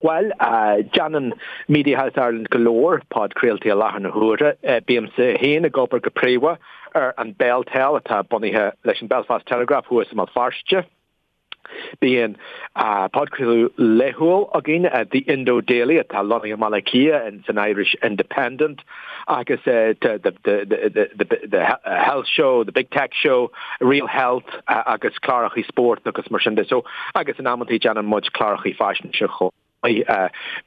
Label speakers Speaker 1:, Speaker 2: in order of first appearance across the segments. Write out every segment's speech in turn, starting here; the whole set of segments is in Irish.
Speaker 1: Bhuel, déanann Mediahouse Ireland go leor podchraoltaí i láthair na huaire. Bímse féin ag obair go príomha ar an BelTel atá bunaithe leis an Belfast Telegraph thuas i mBéal Feirste. Bíonn podchraoladh laethúil againn, The Indo Daily, atá lonnaithe i mBaile Átha Cliath in san Irish Independent, agus The Health Show, The Big Tech Show, Real Health agus clárachaí spóirt agus mar sin de. So, agus in amantaí déanann muid clárachaí faisnéise chomh maith.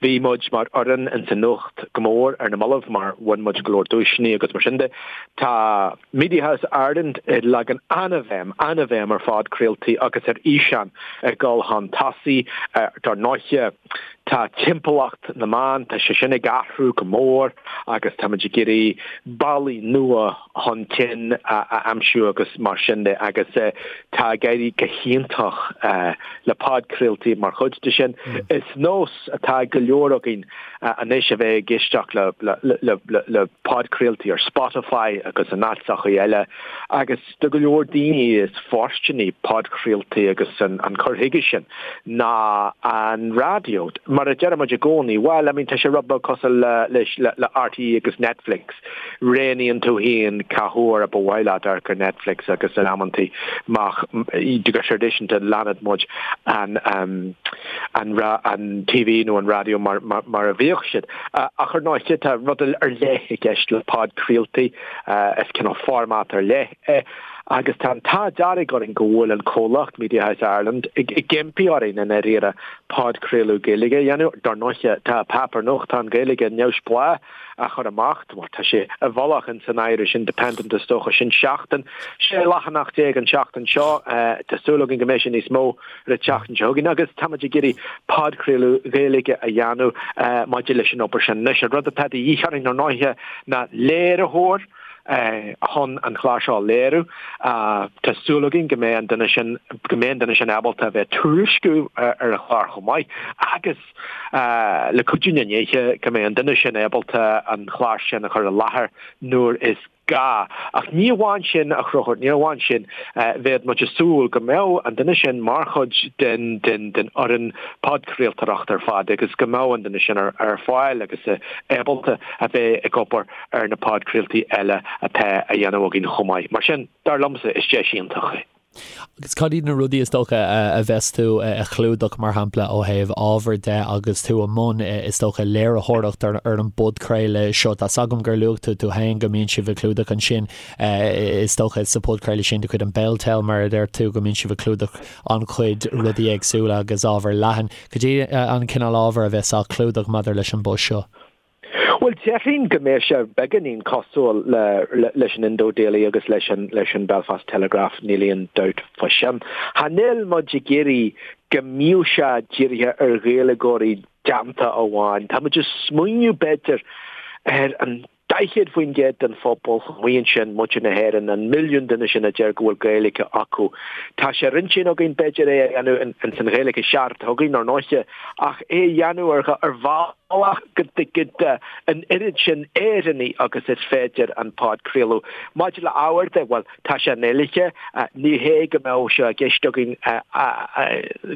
Speaker 1: Bhí muid mar fhoireann ins an nuacht go mór ar na mallaibh mar bhain muid go leor duaiseanna agus mar sin de. Tá Mediahouse Ireland ag leagan an-bhéim, an-bhéim ar phodchraoltaí agus ar fhíseán ag dul chun tosaigh. Dar ndóiche, tá timpeallacht na meán, tá sé sin ag athrú go mór agus táimid ag iarraidh bealaí nua chun cinn a aimsiú agus mar sin de agus tá ag éirí go hiontach le podchraoltaí mar chuid de sin. Is nós atá ag go leor againn anois a bheith ag éisteacht le podchraoltaí ar Spotify agus in áiteachaí eile agus do go leor daoine is fóirsteanaí podchraoltaí agus an cur chuige sin ná an raidió. Mar a deir muid i gcónaí, bhuel, I mean, tá sé rud beag cosúil le le RTÉ agus Netflix. Roghnaíonn tú féin cá huair a ba mhaith leat amharc ar Netflix agus in amantaí go traidisiúnta leanann muid an an an TV nó an raidió mar mar a bhíodh siad. Ach ar ndóigh tá rud ar leith i gceist le podchraoltaí, is cineál format ar leith é agus tá an t-ádh dearg orainn go bhfuil an comhlacht Mediahouse Ireland ag impí orainn i ndáiríre podchraoladh Gaeilge a dhéanamh. Dar ndóigh tá páipéar nuachtáin Gaeilge neamhspleách á chur amach, bhuel tá sé i bhfolach in san Irish Independent is dócha, sin seachtain, 16 leathanach an tseachtain seo, tá súil againn go mbeidh sé níos mó ar an tseachtain seo chugainn agus táimid ag iarraidh podchraoladh Gaeilge a dhéanamh maidir leis an obair sin. Anois an rud atá de dhíth orainn ar ndóighe ná léiritheoir chun an clár seo a léiriú. Tá súil againn go mbeidh an duine sin, go mbeidh an duine sin ábalta a bheith ag tuairisciú ar an chlár chomh maith agus le cuidiú na ndéithe go mbeidh an duine sin ábalta an clár sin a chur i láthair nuair is gá. Ach ní amháin sin, a Chonchúir, ní amháin sin, bheadh muid ag súil go mbeadh an duine sin mar chuid den den fhoireann podchraoltóireachta ar fad agus go mbeadh an duine sin ar fáil agus ábalta a bheith ag obair ar na podchraoltaí eile atá á dhéanamh againn chomh maith. Mar sin, dar liomsa, is deis iontach é.
Speaker 2: Agus cad iad na rudaí is dócha a bheas tú a chlúdach, mar shampla, ó thaobh ábhair de agus tú i mbun, is dócha, léiritheoireacht ar an bpodchraoladh seo? Tá's agam gur luaigh tú tú féin go mbíonn sibh ag clúdach ansin, is dócha, sa phodchraoladh sin de chuid an Beltel, mar a deir tú, go mbíonn sibh ag clúdach an-chuid rudaí éagsúla agus ábhar leathan. Cad é an cineál ábhair a bheas á chlúdach maidir leis an bpost seo?
Speaker 1: Bhuel, déarfainn go mbeidh sé beagáinín cosúil leis an Indo Daily agus leis an leis an Belfast Telegraph, níl aon dabht fá sin. Cha níl muid ag iarraidh go mbíodh sé dírithe ar Ghaeilgeoirí déanta amháin. Tá muid ag smaoineamh b'fhéidir ar an 40% den phobal amuigh ansin, muintir na hÉireann, an milliún duine sin a deir go bhfuil Gaeilge acu. Tá sé ar intinn againn b'fhéidir é a dhéanamh ins an Ghaeilge cheart atá againn, ar ndóiche, ach é a dhéanamh ar bhealach go dtuigfidh an oiread sin Éireannaigh agus is féidir an podchraoladh. Maidir le ábhar de, bhuel, tá sé i nGaeilge, ní hé go mbeadh sé i gceist againn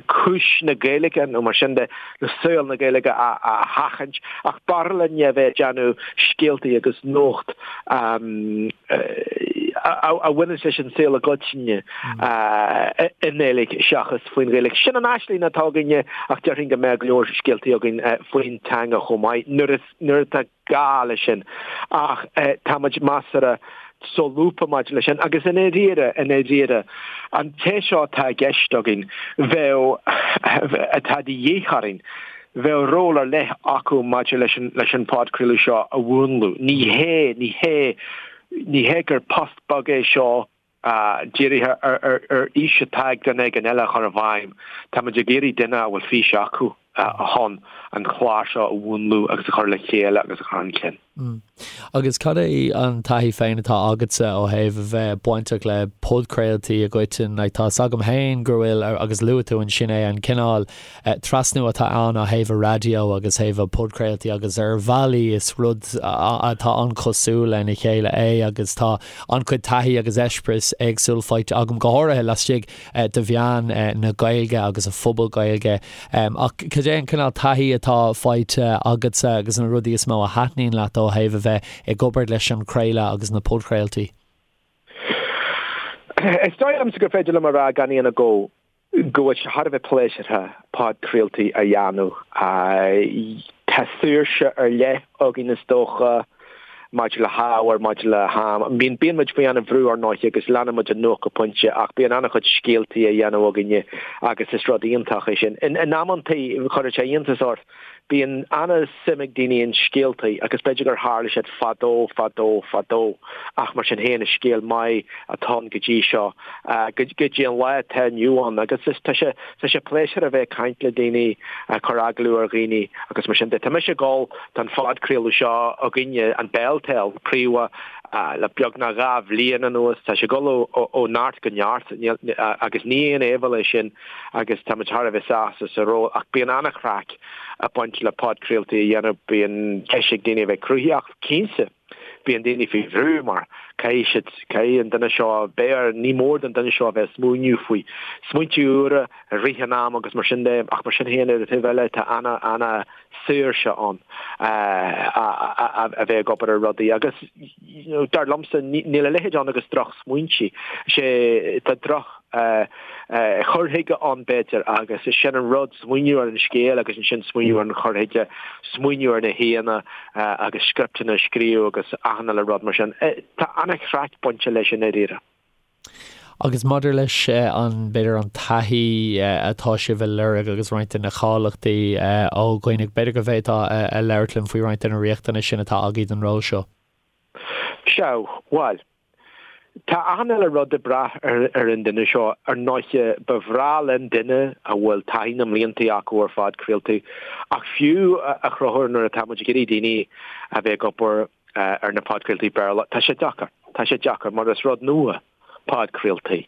Speaker 1: cúis na Gaeilge nó mar sin de, nó saol na Gaeilge a sheachaint, ach b'fhearr linn a bheith ag déanamh scéaltaí agus nuacht a bhaineanns leis an saol i gcoitinne i nGaeilge seachas faoin Ghaeilge. Sin an aisling atá againne ach déarfainn go mbeadh go leor scéaltaí againn faoin teanga chomh maith nuair nuair atá gá leis sin. Ach tá muid measartha solúbtha maidir leis sin agus i ndáiríre, i ndáiríre, an té seo atá i gceist againn, bheadh, atá de dhíth orainn, bheadh ról ar leith acu maidir leis an, leis an phodchraoladh seo a mhúnlú. Ní hé, ní hé, ní hé gur post beag é seo dírithe ar, ar, ar fhís atá ag duine éigin eile a chur i bhfeidhm. Tá muid ag iarraidh duine a bhfuil fís acu chun an clár seo a mhúnlú agus a chur le chéile agus a chur chun cinn.
Speaker 2: Agus cad é an taithí féin atá agatsa ó thaobh a bheith bainteach le podchraoltaí i gcoitinne? Like, tá 's agam féin go bhfuil, agus luaigh tú ansin é, an cineál trasnú atá ann ó thaobh an raidió agus thaobh an podchraoltaí agus ar bhealaí is rud atá an-chosúil lena chéile é agus tá an-chuid taithí agus eispéireas éagsúil faighte agam, go háirithe laistigh de mheáin na Gaeilge agus an phobal Gaeilge. Ach cad. Cad é an cineál taithí atá faighte agatsa agus na rudaí is mó a thaitníonn leat ó thaobh a bheith ag obair leis an chraoladh agus na podchraoltaí?
Speaker 1: Is dóigh liomsa gur féidir liom a rá gan aon agó go bhfuil sé thar a bheith pléisiúrtha podchraoltaí a dhéanamh. Tá saoirse ar leith againn is dócha maidir le hábhar, maidir le ham. Bíonn bíonn muid faoi an-bhrú ar ndóigh agus leanann muid an nuacht go pointe ach bíonn an-chuid scéaltaí á dhéanamh againne agus is rud iontach é sin. In amantaí chuirfeadh sé iontas ort Bíonn an-suim ag daoine in scéaltaí agus b'fhéidir gur tharla siad fadó, fadó, fadó ach mar sin féin is scéal maith atá ann go dtí seo, go dtí an lá atá inniu ann agus is tá sé, tá sé pléisiúrtha a bheith ag caint le daoine, ag cur agallamh ar dhaoine agus mar sin de. Tá mise ag gabháil don phodchraoladh seo againne, an Beltel, príomha, le beagnach 2 bhliain anuas. Tá sé ag dul ó neart go neart agus ní aon áibhéil é sin. agus táimid thar a bheith sásta sa ról ach bíonn an-chraic ag baint le podchraoltaí a dhéanamh, bíonn deis ag daoine a bheith cruthaitheach, cinnte bíonn daoine faoi bhrú mar caithfidh siad, caithfidh an duine seo beidh ar, ní mór don duine seo a bheith ag smaoineamh faoi smaointe úra i rith an ama agus mar sin de ach mar sin féin ar an taobh eile tá ana, ana saoirse ann a bheith ag obair ar rudaí agus dar liomsa níl a leithéid ann agus droch smaointe, sé tá droch chur chuige ann b'fhéidir agus is sin an rud, smaoineamh ar an scéal agus ansin smaoineamh ar an chur chuige, smaoineamh ar na haíonna agus scripteanna a scríobh agus achan uile rud mar sin. Tá an-chraic bainte leis i ndáiríre.
Speaker 2: Agus maidir leis an, b'fhéidir an taithí atá sibh a lorg agus roinnt de na cáilíochtaí ó dhaoine, b'fhéidir go bhféadfá a labhairt linn faoi roinnt de na riachtanais sin atá agaibh don ról seo.
Speaker 1: Sea, bhuel, tá achan uile rud ag brath ar an duine seo. Ar ndóighe, ba bhreá linn duine a bhfuil taithí na mblianta acu ar phodchraoltaí, ach fiú a Chonchúir nuair atá muid ag iarraidh daoine a bheith ag obair ar na podchraoltaí Béarla. Tá sé deacair. Tá sé deacair mar is rud nua podchraoltaí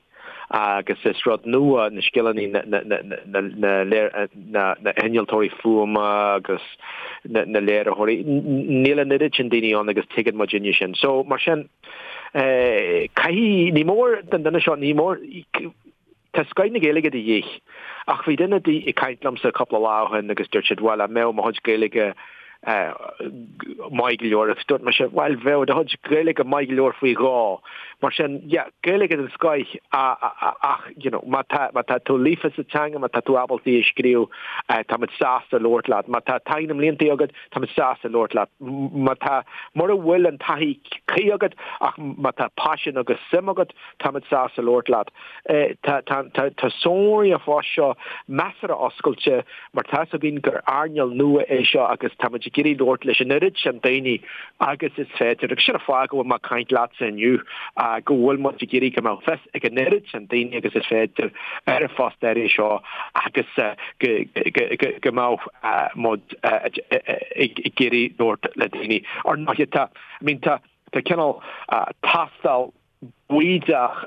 Speaker 1: agus is rud nua na scileanna na na hinnealtóirí fuaime agus na léiritheoirí. Níl an oiread sin daoine ann agus tuigeann muidinne sin. So mar sin caithfidh, ní mór don duine seo, ní mór, Tá scoith na Gaeilge de dhíth. Ach bhí duine ag caint liomsa cúpla lá ó shin agus dúirt siad, bhuel, an mbeadh mo chuid Gaeilge maith go leor? Agus dúirt mise, bhuel, bheadh do chuid Gaeilge maith go leor faoi dhó. Mar sin, yeah, Gaeilge den scoith ach, you know, má tá, má tá tú líofa sa teanga, má tá tú ábalta í a scríobh, táimid sásta labhairt leat. Má tá taithí na mblianta agat, táimid sásta labhairt leat. Má tá, mura bhfuil an taithí cuí agat ach má tá paisean agus suim agat, táimid sásta labhairt leat. Tá sonraí an phoist seo measartha oscailte mar tá fhios againn gur earnáil nua é seo agus táimid ag iarraidh labhairt leis an oiread sin daoine agus is féidir. Agus sin an fáth go bhfuil mé ag caint leatsa inniu, go bhfuil muid ag iarraidh go mbeadh fios ag an oiread sin daoine agus is féidir ar an phost áirithe seo agus go mbeadh muid ag iarraidh labhairt le daoine. Ar ndóigh, tá, I mean, tá cineál tástáil bídeach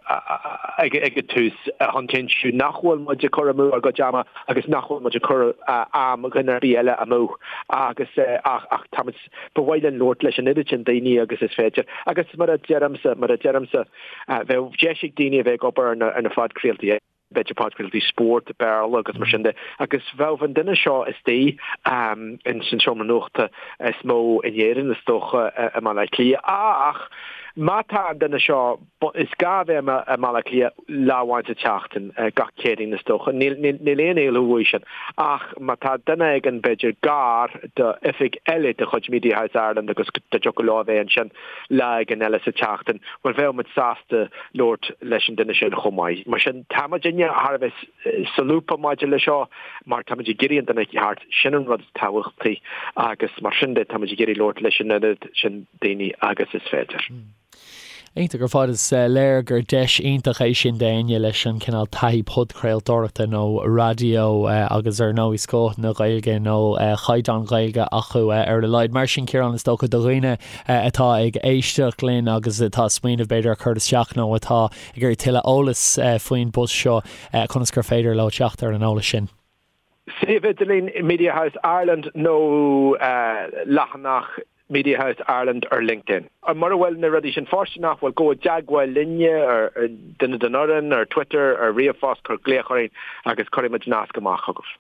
Speaker 1: ag an tús chun cinntiú nach bhfuil muid ag cur amú ár gcuid ama agus nach bhfuil muid ag cur am dhuine ar bith eile amú agus ach ach táimid, ba mhaith linn labhairt leis an oiread sin daoine agus is féidir agus mar a deirimse, mar a deirimse, bheadh deis ag daoine a bheith ag obair ar na phodchraoltaí. b'fhéidir podchraoltaí spóirt, Béarla agus mar sin de, agus bheadh an duine seo istigh in san seomra nuachta is mó in Éirinn is dócha i mBaile Átha Cliath. Ach má tá an duine seo, is gá a bheith i mBaile Átha Cliath lá amháin sa tseachtain, gach Céadaoin is dócha, níl aon éalú uaidh sin. Ach má tá duine éigin b'fhéidir gar do oifig eile de chuid Media House Ireland agus dá dtiocfadh leo a bheith ansin lá éigin eile sa tseachtain, bhuel bheadh muid sásta labhairt leis an duine sin chomh maith. Mar sin, tá muidinne thar a bheith solúbtha maidir le seo mar táimid ag iarraidh an duine ceart, sin an rud is tábhachtaí agus mar sin de táimid ag iarraidh labhairt leis an oiread sin daoine agus is féidir.
Speaker 2: Iontach ar fad, is léir gur deis iontach é sin d'éinne leis an cineál taithí podchraoltóireachta nó raidió agus ar ndóigh scoth na Gaeilge nó caighdeán Gaeilge acu ar a laghad. Mar sin Ciarán is dócha do dhaoine atá ag éisteacht linn agus atá ag smaoineamh b'fhéidir ar chur isteach nó atá ag iarraidh tuilleadh eolais faoin bpost seo, conas gur féidir leo teacht ar an eolas sin?
Speaker 1: Suíomh idirlín Media House Ireland nó leathanach Media House Ireland ar LinkedIn. Mura bhfuil na rudaí sin fóirsteanach, bhuel, gabh i dteagmháil linne, ar duine den fhoireann, ar Twitter, ar ríomhphost, cuir glaoch orainn agus cuirfidh muid nasc amach chugaibh.